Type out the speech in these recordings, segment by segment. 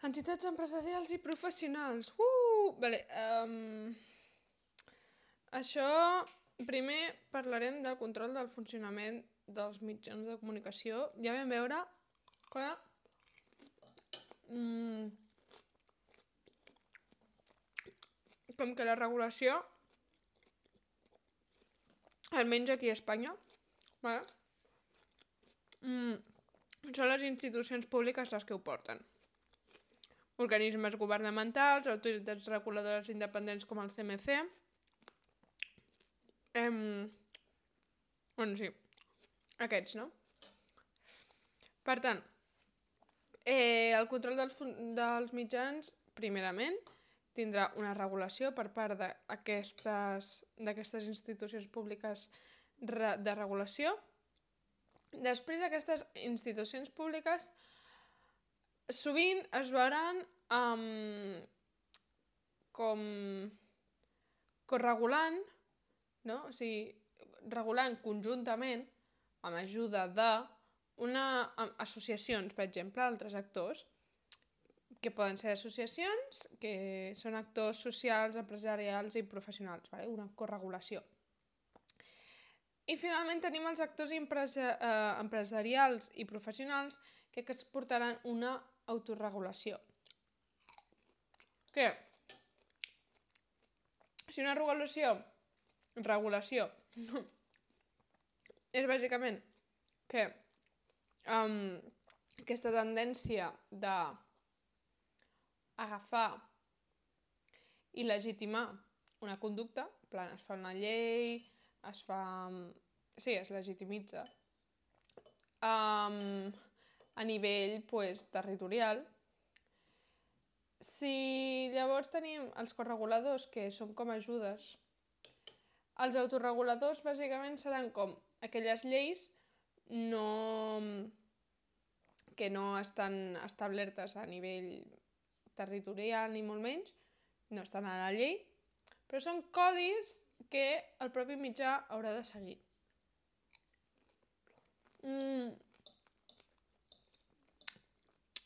Entitats empresarials i professionals. Vale. Això, primer parlarem del control del funcionament dels mitjans de comunicació. Ja vam veure que com que la regulació, almenys aquí a Espanya, vale? Són les institucions públiques les que ho porten. Organismes governamentals, autoritats reguladores independents com el CMC. Bueno, sí, aquests, no? Per tant, el control dels mitjans, primerament, tindrà una regulació per part d'aquestes institucions públiques de regulació. Després, aquestes institucions públiques sovint es veuran com corregulant, no? O sigui, regulant conjuntament, amb ajuda associacions, per exemple, altres actors, que poden ser associacions, que són actors socials, empresarials i professionals, vale? Una corregulació. I finalment tenim els actors empresarials i professionals que es portaran una autorregulació. Què? Si una regulació és bàsicament que aquesta tendència d'agafar i legitimar una conducta, en plan, es fa una llei, es legitimitza a nivell territorial. Si llavors tenim els correguladors, que són com ajudes, els autorreguladors bàsicament seran com aquelles lleis que no estan establertes a nivell territorial ni molt menys, no estan a la llei, però són codis que el propi mitjà haurà de seguir.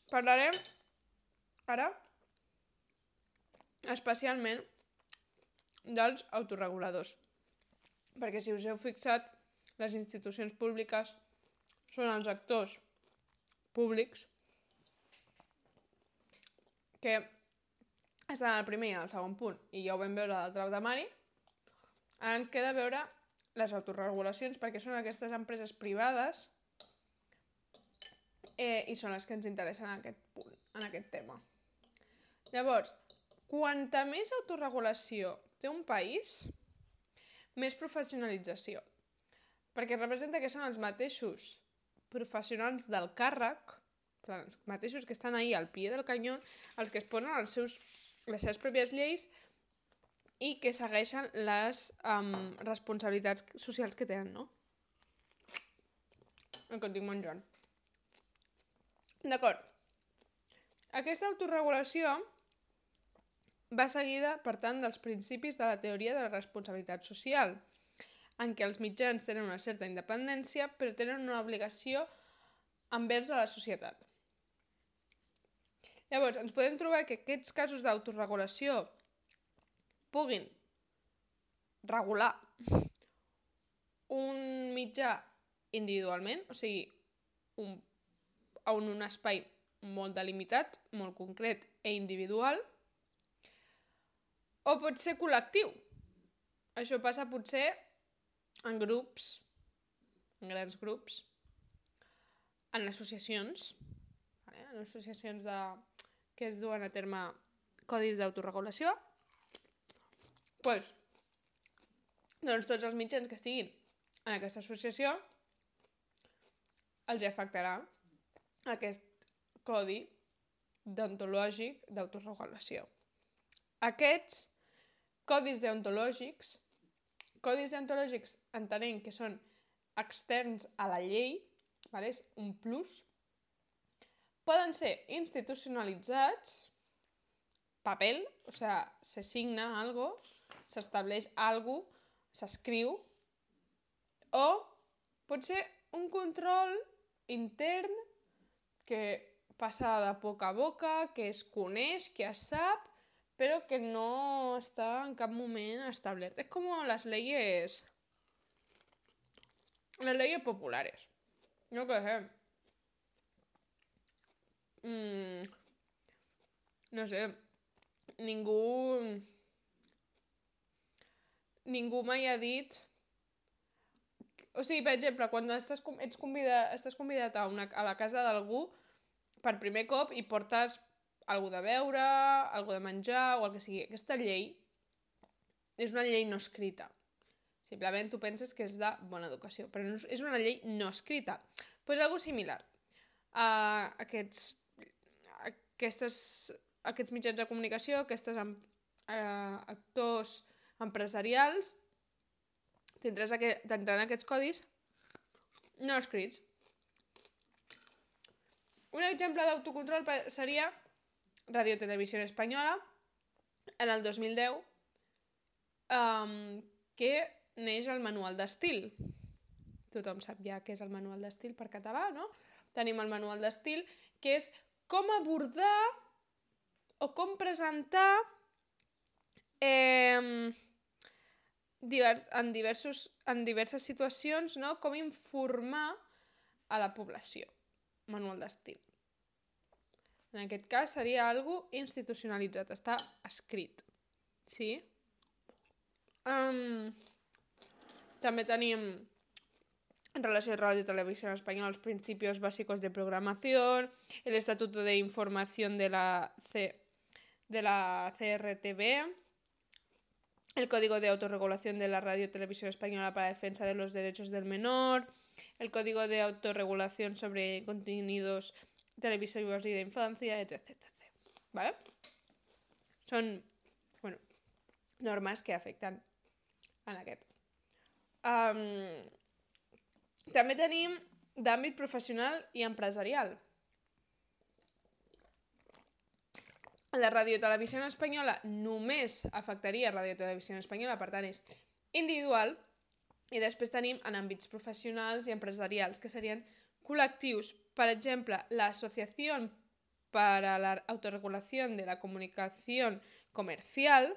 Parlarem ara especialment dels autorreguladors, perquè si us heu fixat, les institucions públiques són els actors públics que estan al primer i al segon punt, i ja ho vam veure a l'altre temari. Ara ens queda veure les autorregulacions, perquè són aquestes empreses privades i són les que ens interessen en aquest punt, en aquest tema. Llavors, quanta més autorregulació té un país, més professionalització. Perquè representa que són els mateixos professionals del càrrec, els mateixos que estan ahí al pie del canyó, els que es posen les seves pròpies lleis i que segueixen les responsabilitats socials que tenen, no? El que et dic menjant. D'acord. Aquesta autorregulació va seguida, per tant, dels principis de la teoria de la responsabilitat social, en què els mitjans tenen una certa independència, però tenen una obligació envers a la societat. Llavors, ens podem trobar que aquests casos d'autorregulació puguin regular un mitjà individualment, o sigui, en un espai molt delimitat, molt concret i individual, o pot ser col·lectiu. Això passa potser en grups, en grans grups, en associacions, que es duen a terme codis d'autorregulació. Doncs tots els mitjans que estiguin en aquesta associació els afectarà aquest codi deontològic d'autorregulació. Aquests codis deontològics entenem que són externs a la llei, és un plus, poden ser institucionalitzats, paper, o sigui, se signa algo, s'estableix algo, s'escriu, o pot ser un control intern que passa de boca a boca, que es coneix, que es sap, però que no està en cap moment establert. És com les leyes populares. Yo qué sé. No sé. Ningú mai ha dit... O sigui, per exemple, quan estàs convidat a la casa d'algú per primer cop i portes algú de beure, algú de menjar o el que sigui. Aquesta llei és una llei no escrita. Simplement tu penses que és de bona educació, però no, és una llei no escrita. Pues algo similar. Aquests mitjans de comunicació, aquests actors empresarials tindran aquests codis no escrits. Un exemple d'autocontrol seria Radio Televisión Española en el 2010, que neix el manual d'estil. Tothom sap ja què és el manual d'estil per català, no? Tenim el manual d'estil, que és com abordar o com presentar en diverses situacions, no? Com informar a la població. Manual d'estil. En aquest cas seria algo institucionalitzat, està escrit. Sí? També tenim, en relació a Radio Televisión Española, los principios básicos de programación, el Estatuto de Información de la CRTV, el Código de Autorregulación de la Radio Televisión Española para la defensa de los derechos del menor, el Código de Autorregulación sobre contenidos televisivos y de infancia, etc. ¿Vale? Són, normes que afecten en aquest. També tenim d'àmbit professional i empresarial. La Radio Televisión Española només afectaria Radio Televisión Española, per tant és individual, i després tenim en àmbits professionals i empresarials, que serien col·lectius. Per exemple, la Asociación para la Autorregulación de la Comunicación Comercial,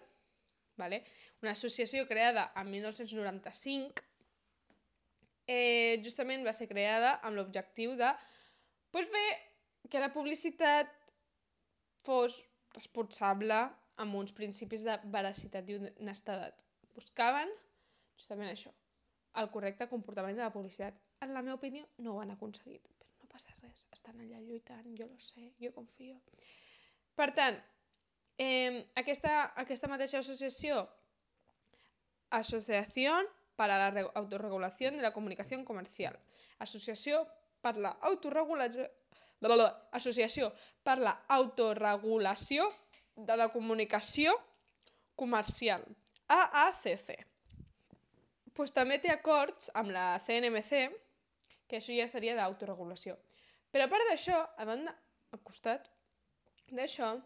¿vale? Una associació creada en 1995, justament va ser creada amb l'objectiu de fer que la publicitat fos responsable amb uns principis de veracitat i honestedat. Buscaven justament això, el correcte comportament de la publicitat. En la meva opinió no ho han aconseguit, però no passa res, estan allà lluitant, jo lo sé, jo confio. Per tant, aquesta mateixa associació, Asociación para la Autorregulación de la Comunicación Comercial, Associació per la Autorregulació de la Comunicació Comercial, AACC. Pues també té acords amb la CNMC, que això ja seria d'autoregulació. Però a part d'això, al costat d'això,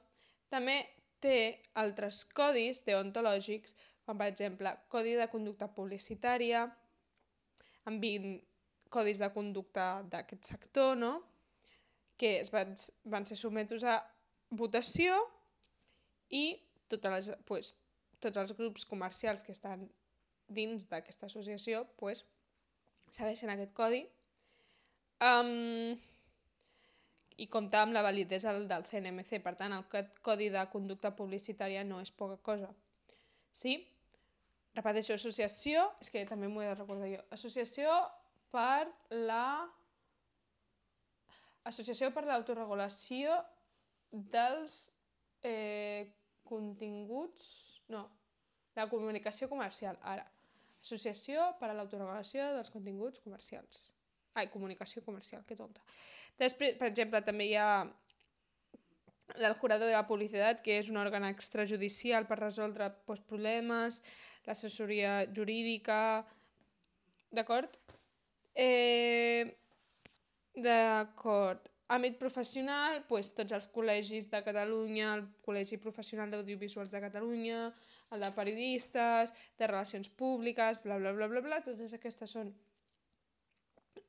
també té altres codis deontològics, com per exemple Codi de Conducta Publicitària, amb 20 codis de conducta d'aquest sector, no? Que van ser sotmesos a votació i tots els grups comercials que estan dins d'aquesta associació segueixen aquest codi i compta amb la validesa del CNMC. Per tant, el Codi de Conducta Publicitària no és poca cosa. Sí? Repeteixo, associació, és que també m'ho he de recordar jo, Associació per l'autoregulació dels continguts... No, la comunicació comercial, ara. Associació per a l'autoregulació dels continguts comercials. Comunicació comercial, que tonta. Després, per exemple, també hi ha el Jurado de la Publicitat, que és un òrgan extrajudicial per resoldre problemes, l'assessoria jurídica... D'acord? D'acord. Àmbit professional, tots els col·legis de Catalunya, el Col·legi Professional d'Audiovisuals de Catalunya, el de periodistes, de relacions públiques, bla, bla, bla, bla, bla, totes aquestes són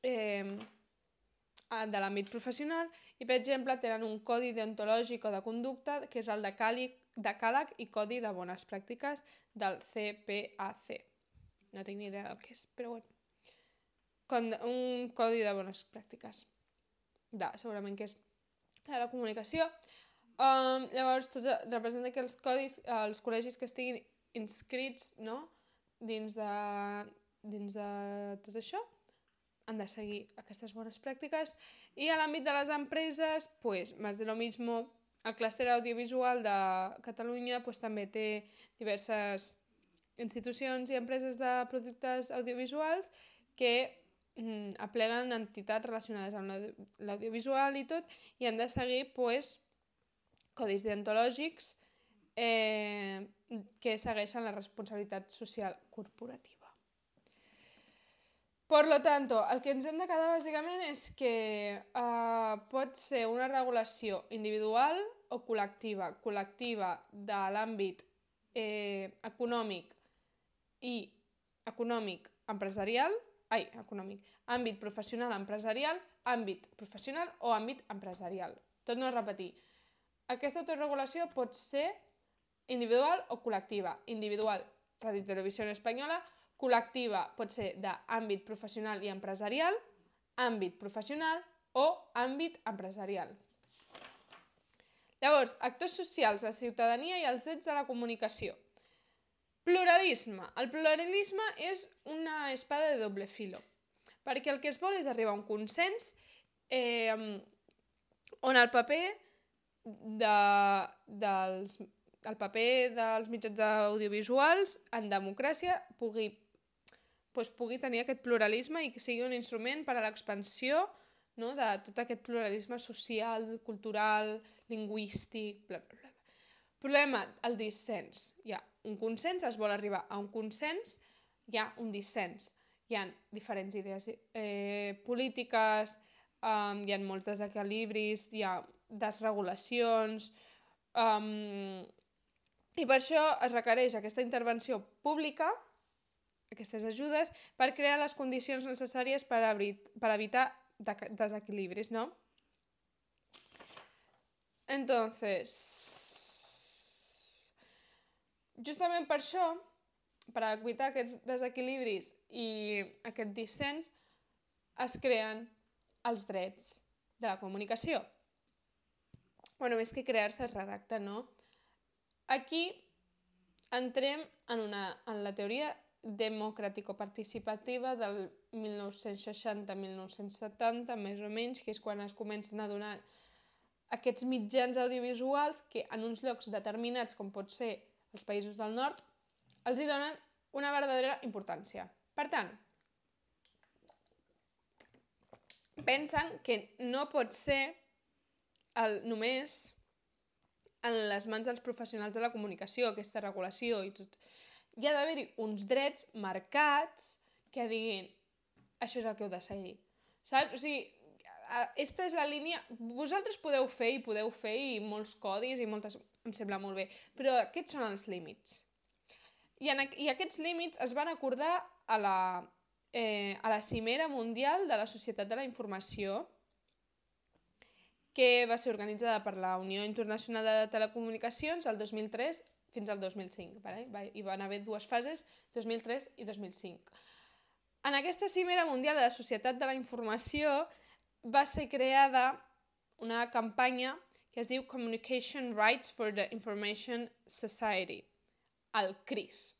de l'àmbit professional. i, per exemple, tenen un codi deontològic o de conducta, que és el decàleg i codi de bones pràctiques del CPAC. No tinc ni idea del que és, però bueno. Un codi de bones pràctiques. Segurament que és de la comunicació. Llavors, representa que els codis, els col·legis que estiguin inscrits, no?, dins de tot això, han de seguir aquestes bones pràctiques. I a l'àmbit de les empreses, pues, más de lo mismo. El clúster audiovisual de Catalunya pues, també té diverses institucions i empreses de productes audiovisuals que apleguen entitats relacionades amb l'audiovisual i tot, i han de seguir pues, codis deontològics que segueixen la responsabilitat social corporativa. Por lo tanto, el que ens hem de quedar bàsicament és que pot ser una regulació individual o col·lectiva. Col·lectiva de l'àmbit econòmic i àmbit professional empresarial, àmbit professional o àmbit empresarial. Tot no repetir. Aquesta autorregulació pot ser individual o col·lectiva. Individual, Radio i Televisió Espanyola. Col·lectiva pot ser d'àmbit professional i empresarial, àmbit professional o àmbit empresarial. Llavors, actors socials, la ciutadania i els drets de la comunicació. Pluralisme. El pluralisme és una espada de doble filo, perquè el que es vol és arribar a un consens on el paper dels mitjans audiovisuals en democràcia pugui tenir aquest pluralisme i que sigui un instrument per a l'expansió, no, de tot aquest pluralisme social, cultural, lingüístic, bla, bla, bla. Problema, el dissens. Hi ha un consens, es vol arribar a un consens, hi ha un dissens. Hi ha diferents idees polítiques, hi ha molts desequilibris, hi ha desregulacions, i per això es requereix aquesta intervenció pública, aquestes ajudes, per crear les condicions necessàries per evitar desequilibris, ¿no? Entonces, justament per això, per evitar aquests desequilibris i aquest dissens, es creen els drets de la comunicació. Bueno, més que crear-se es redacta, no? Aquí entrem en la teoria democràtico-participativa del 1960-1970, més o menys, que és quan es comencen a donar aquests mitjans audiovisuals que en uns llocs determinats, com pot ser els països del nord, els hi donen una verdadera importància. Per tant, pensen que no pot ser només en les mans dels professionals de la comunicació, aquesta regulació i tot. Hi ha d'haver-hi uns drets marcats que diguin això és el que heu de seguir. Saps? O sigui, aquesta és la línia... Vosaltres podeu fer i molts codis i moltes... Em sembla molt bé, però aquests són els límits. I aquests límits es van acordar a la Cimera Mundial de la Societat de la Informació, que va ser organitzada per la Unió Internacional de Telecomunicacions el 2003 fins al 2005. Hi van haver dues fases, 2003 i 2005. En aquesta Cimera Mundial de la Societat de la Informació va ser creada una campanya que es diu Communication Rights for the Information Society, el CRIS.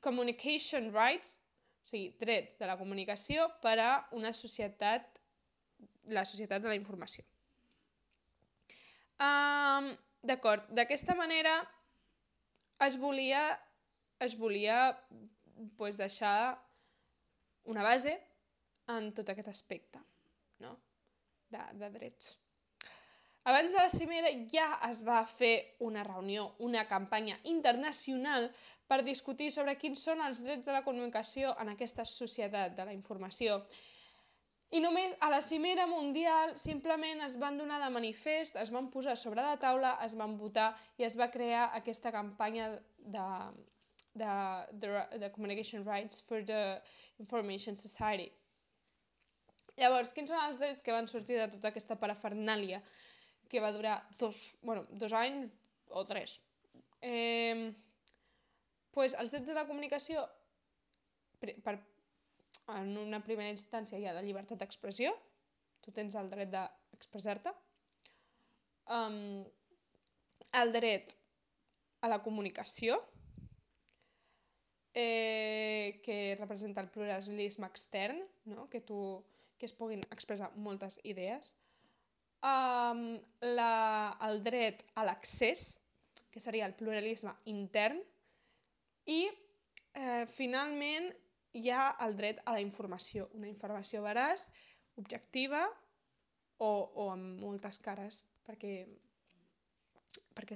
Communication Rights, o sigui, drets de la comunicació per a una societat, la societat de la informació. D'acord, d'aquesta manera es volia deixar una base en tot aquest aspecte, no? de drets. Abans de la cimera ja es va fer una reunió, una campanya internacional per discutir sobre quins són els drets de la comunicació en aquesta societat de la informació. I només a la cimera mundial simplement es van donar de manifest, es van posar sobre la taula, es van votar i es va crear aquesta campanya de Communication Rights for the Information Society. Llavors, quins són els drets que van sortir de tota aquesta parafernàlia que va durar 2 anys o 3? Pues els drets de la comunicació, en una primera instància hi ha la llibertat d'expressió, tu tens el dret d'expressar-te, el dret a la comunicació, que representa el pluralisme extern, no? que es puguin expressar moltes idees, el dret a l'accés, que seria el pluralisme intern, i finalment hi ha el dret a la informació, una informació veraç, objectiva o amb moltes cares perquè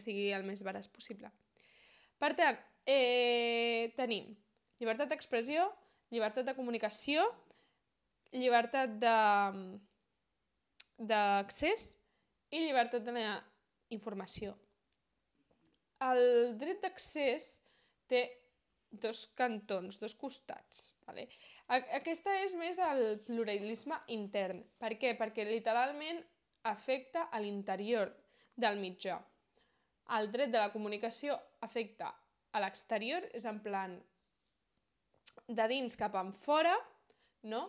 sigui el més veraç possible. Per tant, tenim llibertat d'expressió, llibertat de comunicació, llibertat d'accés i llibertat de la informació. El dret d'accés té dos cantons, dos costats. Vale? Aquesta és més el pluralisme intern. Per què? Perquè literalment afecta a l'interior del mitjà. El dret de la comunicació afecta a l'exterior, és en plan de dins cap enfora, no?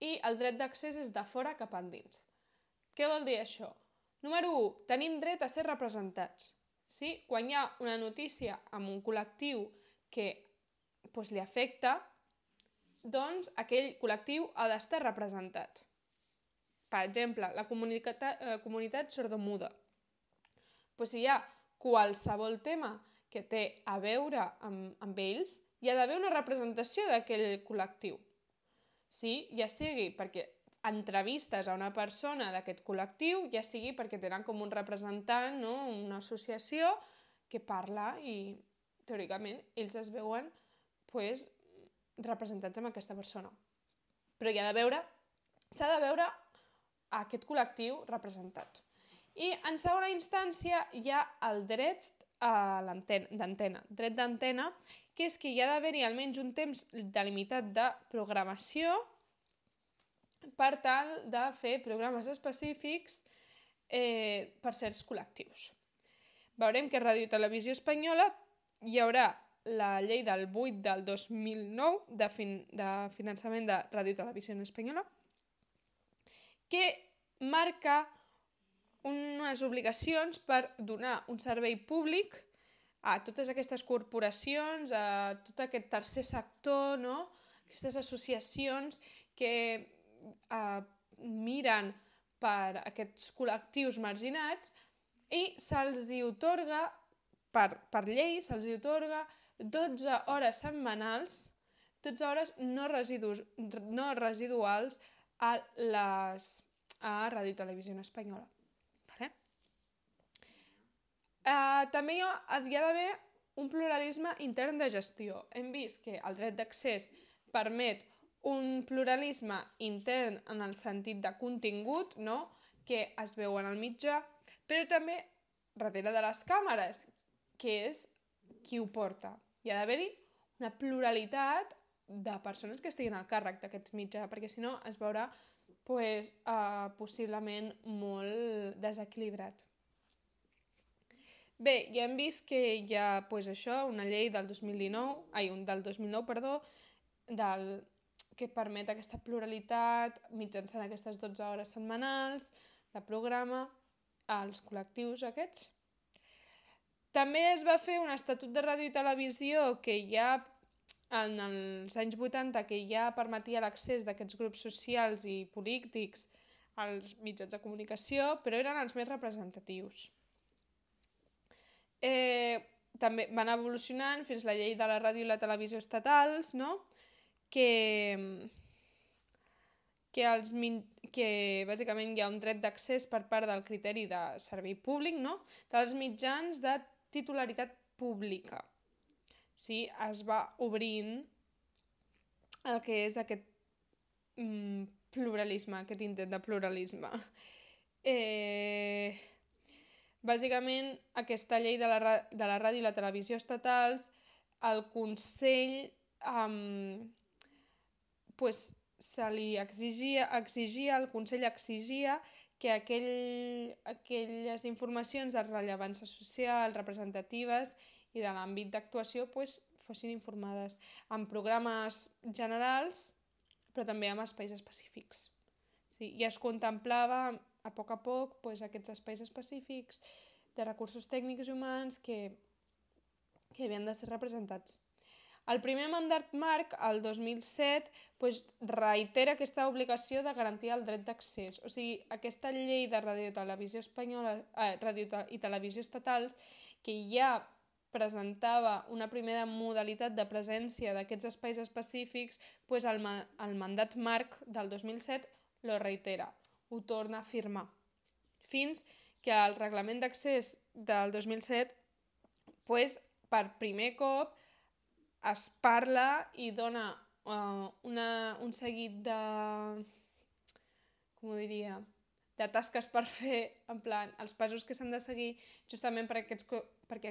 I el dret d'accés és de fora cap endins. Què vol dir això? Número 1, tenim dret a ser representats. Sí? Quan hi ha una notícia amb un col·lectiu que li afecta, doncs aquell col·lectiu ha d'estar representat. Per exemple, la comunitat sordomuda. Si hi ha qualsevol tema que té a veure amb ells, hi ha d'haver una representació d'aquell col·lectiu. Sí? Ja sigui perquè entrevistes a una persona d'aquest col·lectiu, ja sigui perquè tenen com un representant, no? Una associació que parla i, teòricament, ells es veuen representats amb aquesta persona. Però s'ha de veure aquest col·lectiu representat. I en segona instància hi ha el dret d'antena. Dret d'antena, que és que hi ha d'haver-hi almenys un temps delimitat de programació per tal de fer programes específics per certs col·lectius. Veurem que a Ràdio i Televisió Espanyola hi haurà la llei del 8 del 2009 de finançament de Ràdio i Televisió Espanyola, que marca unes obligacions per donar un servei públic a totes aquestes corporacions, a tot aquest tercer sector, no? Aquestes associacions que miren per aquests col·lectius marginats i se'ls atorga, per llei, se'ls atorga 12 hores setmanals, 12 hores no residuals a Ràdio i Televisió Espanyola. També hi ha d'haver un pluralisme intern de gestió. Hem vist que el dret d'accés permet un pluralisme intern en el sentit de contingut, no? Que es veu en el mitjà, però també darrere de les càmeres, que és qui ho porta. Hi ha d'haver-hi una pluralitat de persones que estiguin al càrrec d'aquest mitjà, perquè si no es veurà possiblement molt desequilibrat. Bé, ja hem vist que hi ha una llei del 2009, que permet aquesta pluralitat mitjançant aquestes 12 hores setmanals de programa als col·lectius aquests. També es va fer un estatut de ràdio i televisió que ja en els anys 80 que ja permetia l'accés d'aquests grups socials i polítics als mitjans de comunicació, però eren els més representatius. També van evolucionant fins la llei de la ràdio i la televisió estatals, no? que bàsicament hi ha un dret d'accés per part del criteri de servei públic, no? Dels mitjans de titularitat pública. Sí? Es va obrint el que és aquest pluralisme, aquest intent de pluralisme. Bàsicament, aquesta llei de la ràdio i la televisió estatals, el Consell se li exigia, el Consell exigia que aquelles informacions de rellevància social, representatives i de l'àmbit d'actuació fossin informades en programes generals, però també en espais específics. Sí, i es contemplava a poc aquests espais específics de recursos tècnics i humans que havien de ser representats. El primer mandat marc, el 2007, reitera aquesta obligació de garantir el dret d'accés. O sigui, aquesta llei de ràdio i televisió espanyola, ràdio i televisió estatals, que ja presentava una primera modalitat de presència d'aquests espais específics, el mandat marc del 2007 lo reitera, ho torna a afirmar. Fins que el reglament d'accés del 2007, per primer cop, es parla i dona un seguit de tasques per fer, en plan, els passos que s'han de seguir justament perquè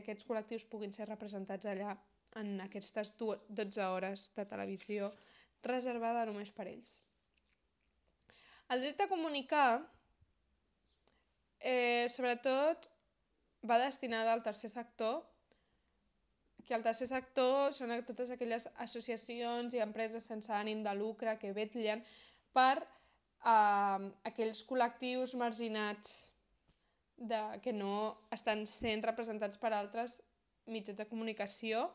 aquests col·lectius puguin ser representats allà en aquestes 12 hores de televisió reservada només per ells. El dret a comunicar, sobretot, va destinat al tercer sector, que el tercer sector són totes aquelles associacions i empreses sense ànim de lucre que vetllen per aquells col·lectius marginats que no estan sent representats per altres mitjans de comunicació.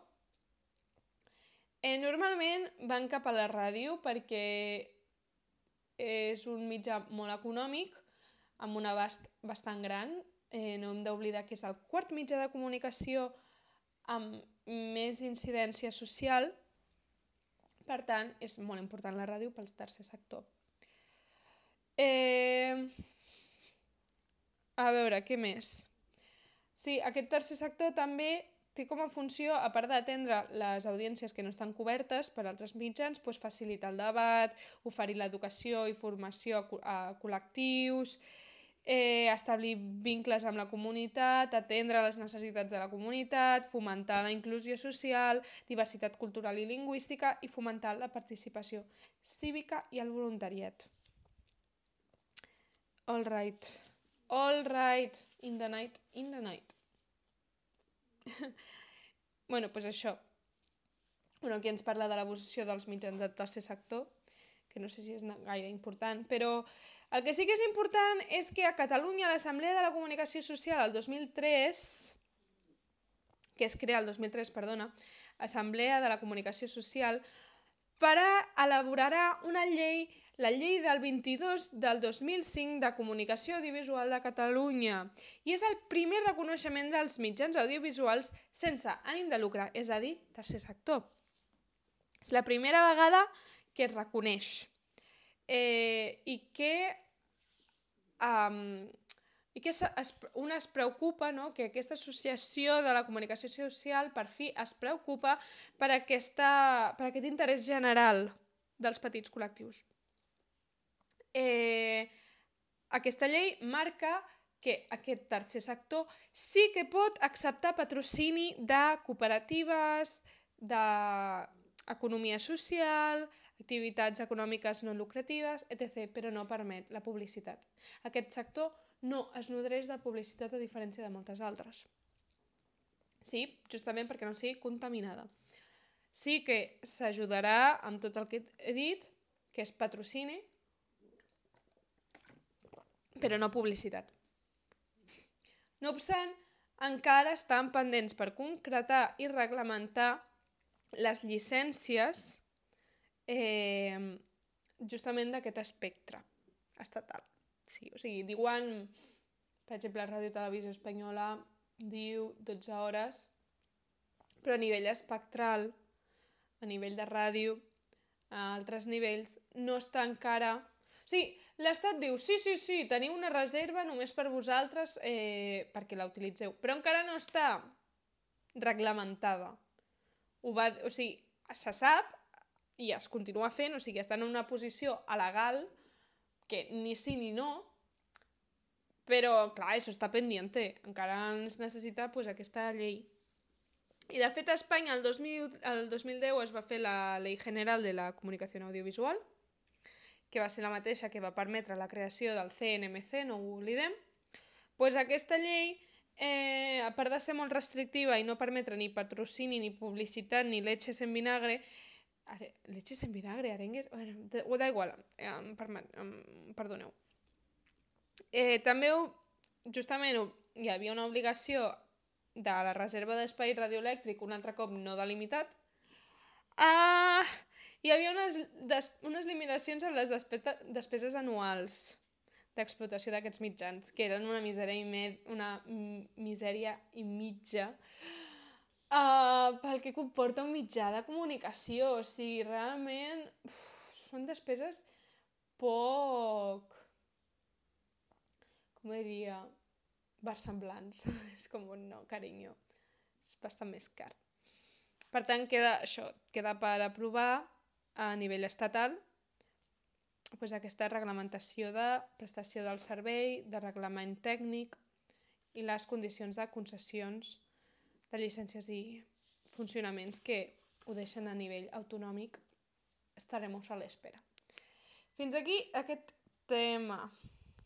Normalment van cap a la ràdio perquè és un mitjà molt econòmic, amb un abast bastant gran. No hem d'oblidar que és el quart mitjà de comunicació amb més incidència social, per tant, és molt important la ràdio pel tercer sector. A veure, què més? Sí, aquest tercer sector també té com a funció, a part d'atendre les audiències que no estan cobertes per altres mitjans, facilitar el debat, oferir l'educació i formació a col·lectius, establir vincles amb la comunitat, atendre les necessitats de la comunitat, fomentar la inclusió social, diversitat cultural i lingüística i fomentar la participació cívica i el voluntariat. All right, in the night. Això. Aquí ens parla de l'evolució dels mitjans del tercer sector, que no sé si és gaire important, però el que sí que és important és que a Catalunya l'Assemblea de la Comunicació Social el 2003, que es crea el 2003, Assemblea de la Comunicació Social, elaborarà una llei, la llei del 22 del 2005 de Comunicació Audiovisual de Catalunya, i és el primer reconeixement dels mitjans audiovisuals sense ànim de lucre, és a dir, tercer sector. És la primera vegada que es reconeix i que un es preocupa, que aquesta associació de la comunicació social per fi es preocupa per aquest interès general dels petits col·lectius. Aquesta llei marca que aquest tercer sector sí que pot acceptar patrocini de cooperatives, d'economia social, activitats econòmiques no lucratives, etc., però no permet la publicitat. Aquest sector no es nodreix de publicitat a diferència de moltes altres. Sí, justament perquè no sigui contaminada. Sí que s'ajudarà amb tot el que he dit, que és patrocini, però no publicitat. No obstant, encara estan pendents per concretar i reglamentar les llicències justament d'aquest espectre estatal. Sí, o sigui, diuen, per exemple, la Ràdio Televisió Espanyola diu 12 hores, però a nivell espectral, a nivell de ràdio, a altres nivells, no està encara... O sigui, l'Estat diu, sí, teniu una reserva només per vosaltres perquè la utilitzeu, però encara no està reglamentada. O sigui, se sap i es continua fent, o sigui, estan en una posició alegal que ni sí ni no, però, clar, això està pendiente. Encara es necessita aquesta llei. I, de fet, a Espanya el 2010 es va fer la Ley General de la Comunicació Audiovisual, que va ser la mateixa que va permetre la creació del CNMC, no ho oblidem, doncs aquesta llei, a part de ser molt restrictiva i no permetre ni patrocini, ni publicitat, ni leches en vinagre, leches en vinagre, arengues... Bueno, da igual, perdoneu. També, justament, hi havia una obligació de la reserva d'espai radioelèctric, un altre cop no delimitat. Hi havia unes limitacions en les despeses anuals d'explotació d'aquests mitjans, que eren una misèria i mitja pel que comporta un mitjà de comunicació. O sigui, realment són despeses poc, com diria, versemblants. És com un no, carinyo. És bastant més car. Per tant, queda per aprovar a nivell estatal aquesta reglamentació de prestació del servei, de reglament tècnic i les condicions de concessions de llicències i funcionaments que ho deixen a nivell autonòmic. Estaremos a l'espera. Fins aquí aquest tema.